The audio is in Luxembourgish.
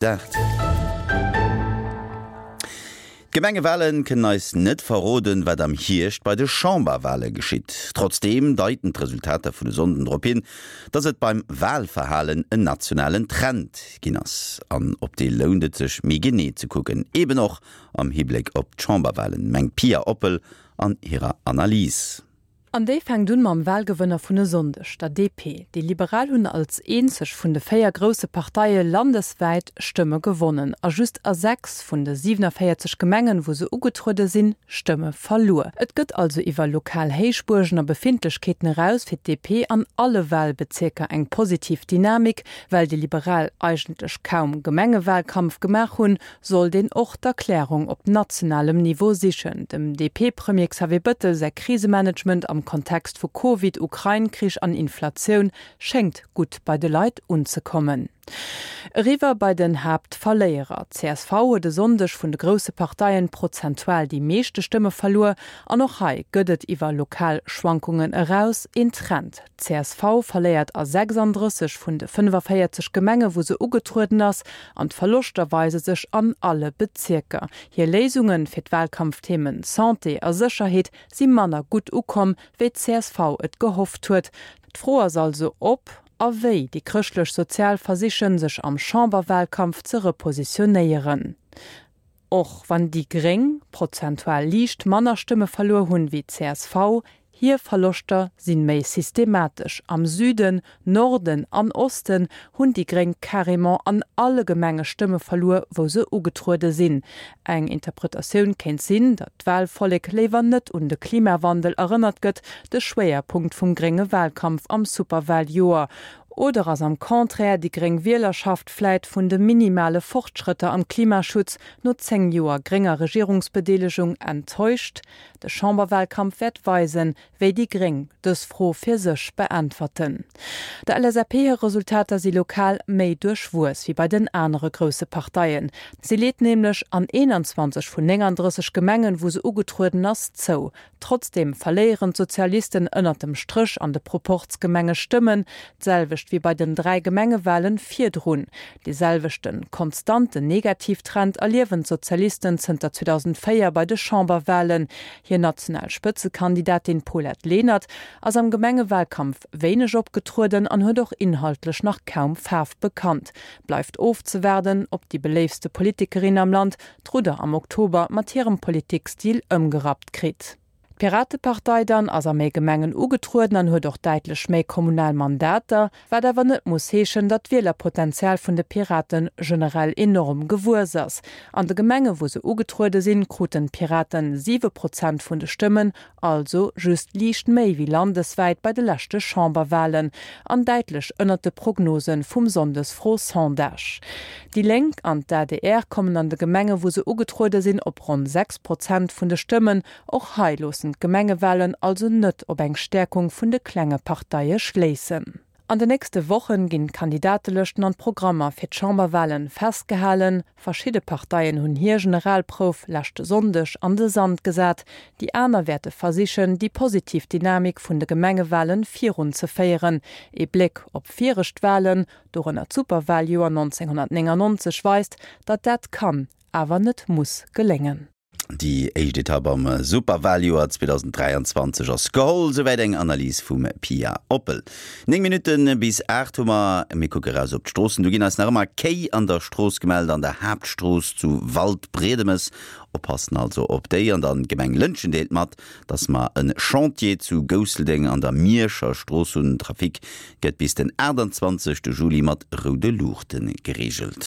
8. D'Gemengewale kënnen eis net verroden, wat am Hierscht bei de Chamberwale geschitt. Trotzdeem deiten d'Resultater vun e Sonnden drop hin, datt et beim Walverhalen en nationalen Trend ginn ass. An op dee lount et sech méi genee ze kucken, eben och am Hibléck op d'Chamberwalen, mengt d'Pia Oppel an hirer Analys. An déi fänkt un mam Wahlgewënner vun e Sonndeg, der DP. Déi Liberal hunn als eenzeg vun de 4 grousse Parteie landeswäit Stëmme gewonnen a just a 6 vun de 47 Gemengen, wou se ugetruede sinn, Stëmme verluer. Et gëtt also iwwer lokal Héichbuergen a Befindlechkeeten eraus fir d'DP an alle Wahlbezierker eng positiv Dynamik. Well déi Liberal eigentlech kaum Gemengewahlkampf gemaach hunn, sollt een och d'Erklärung op nationalem Niveau sichen. Dem DP-Premier Xavier Bëttel säi Krisemanagement am Kontext vu Covid, Ukrain-Krich an Inflatioun schéngt gutt bei de Leit unzekommen. Eriwwer bei den Haaptverléierer. Csv huet e Sonndeg vun de grousse Parteien prozentual déi meeschte Stëmme verluer. An och hei gëtt et iwwer lokal Schwankungen eraus een Trend. D'CSV verléiert a 36 vun de 45 Gemenge wou se ugetrueden ass, an d'Verloschter weise sech an alle Bezierker. Hir Léisunge fir d'Wahlkampfthemen Santé a Sécherheet si manner gutt ukomm, wéi d'CSV et gehofft huet. D'Fro ass also ob a wéi déi chrëschtlech-sozial versichen, sech am Chamberwahlkampf ze repositionéieren. Och wann déi Gréng prozentual liicht manner Stëmme verluer hunn wéi csv, hir Verloschter sinn méi systematesch. Am Süden, Norden an Osten hunn déi Gréng carrément an alle Gemenge Stëmme verluer, wou se ugetruede sinn. Eng Interpretatioun kéint sinn, datt d'Wahlvollek léiwer net un de Klimawandel erënnert gëtt, de Schwéierpunkt vum grénge Wahlkampf am Superwahljoer. Oder ass am Contraire déi gréng Wielerschaft vläit vun de minimale Fortschrëtter am Klimaschutz no 10 Joer grénger Regierungsbedeelegung enttäuscht? De Chamberwahlkampf wäert weisen, wéi déi gréng dës Fro fir sech beäntwerten. Der LSAP hir Resultater si lokal méi duerchwuess wéi bei den anere grousse Parteien. Si leet nämlech an 21 vun 39 Gemengen, wou se ugetrueden ass, zou. Trotzdeem verléieren d'Sozialisten ënnert dem Stréch an de Proporzgemenge Stëmmen, d'selwecht wéi bei den 3 Gemengewalen virdrun. Dee selwechten, konstanten Negativtrend erliewen d'Sozialisten zënter 2004 bei de Chamberwalen. Hir national Spëtzekandidatin Paulette Lenert ass am Gemengewalkampf wéineg opgetrueden an huet och inhaltlech nach kaum Faarf bekannt. Bleift ofzewaarden, ob déi beléiftste Politikerin am Land d'Rudder am Oktober mat hirem Politikstil ëmgerappt kritt. D'Piratepartei dann ass a méi Gemengen ugetrueden an huet och däitlech méi kommunal Mandater, wat awer net muss heeschen, datt d'Wielerpotenzial vun de Piraten generell enorm gewuess ass. An de Gemenge wou se ugetruede sinn, kruten d'Piraten 7 Prozent vun de Stëmmen, also just liicht méi wéi landeswäit bei de leschte Chamberwalen an däitlech ënnert de Prognose vum Sonndesfro-Sondage. Déi Lénk an d'ADR kommen an de Gemenge wou se ugetruede sinn op ronn 6 Prozent vun de Stëmmen. Och hei loossen d'Gemengewalen also net op eng Stäerkung vun de klenge Parteie schléissen. An de nächste Wochen ginn d'Kandidatelëschten an d'Programmer fir d'Chamberwalen festgehalen. Verschidde Parteien hunn hir Generalprouf leschte Sonndeg an de Sand gesat. Déi aner wäerte versichen, déi positiv Dynamik vun de Gemengewalen virunzeféieren. Ee Bléck op viregt Walen, dorënner d'Superwaljoer 1999, weist, datt dat kann, awer net muss geléngen. Déi éischt Etapp am Superwaljoer 2023 ass geholl, souwäit eng Analys vum Pia Oppel. 9 Minutte bis 8 hu mer. Mir kucke raus op d'Stroossen. Do ginn eis nach ëmmer Kéi an der Strooss gemellt, an der Haaptstrooss zu Waldbriedemes. Oppassen also op déi. An dann d'Gemeng Lëntgen deelt mat, dass mer e Chantier zu Gousseldeng an der Mierscher Strooss hunn. Den Trafic gëtt bis den 28 Juli mat roude Luuchte gereegelt.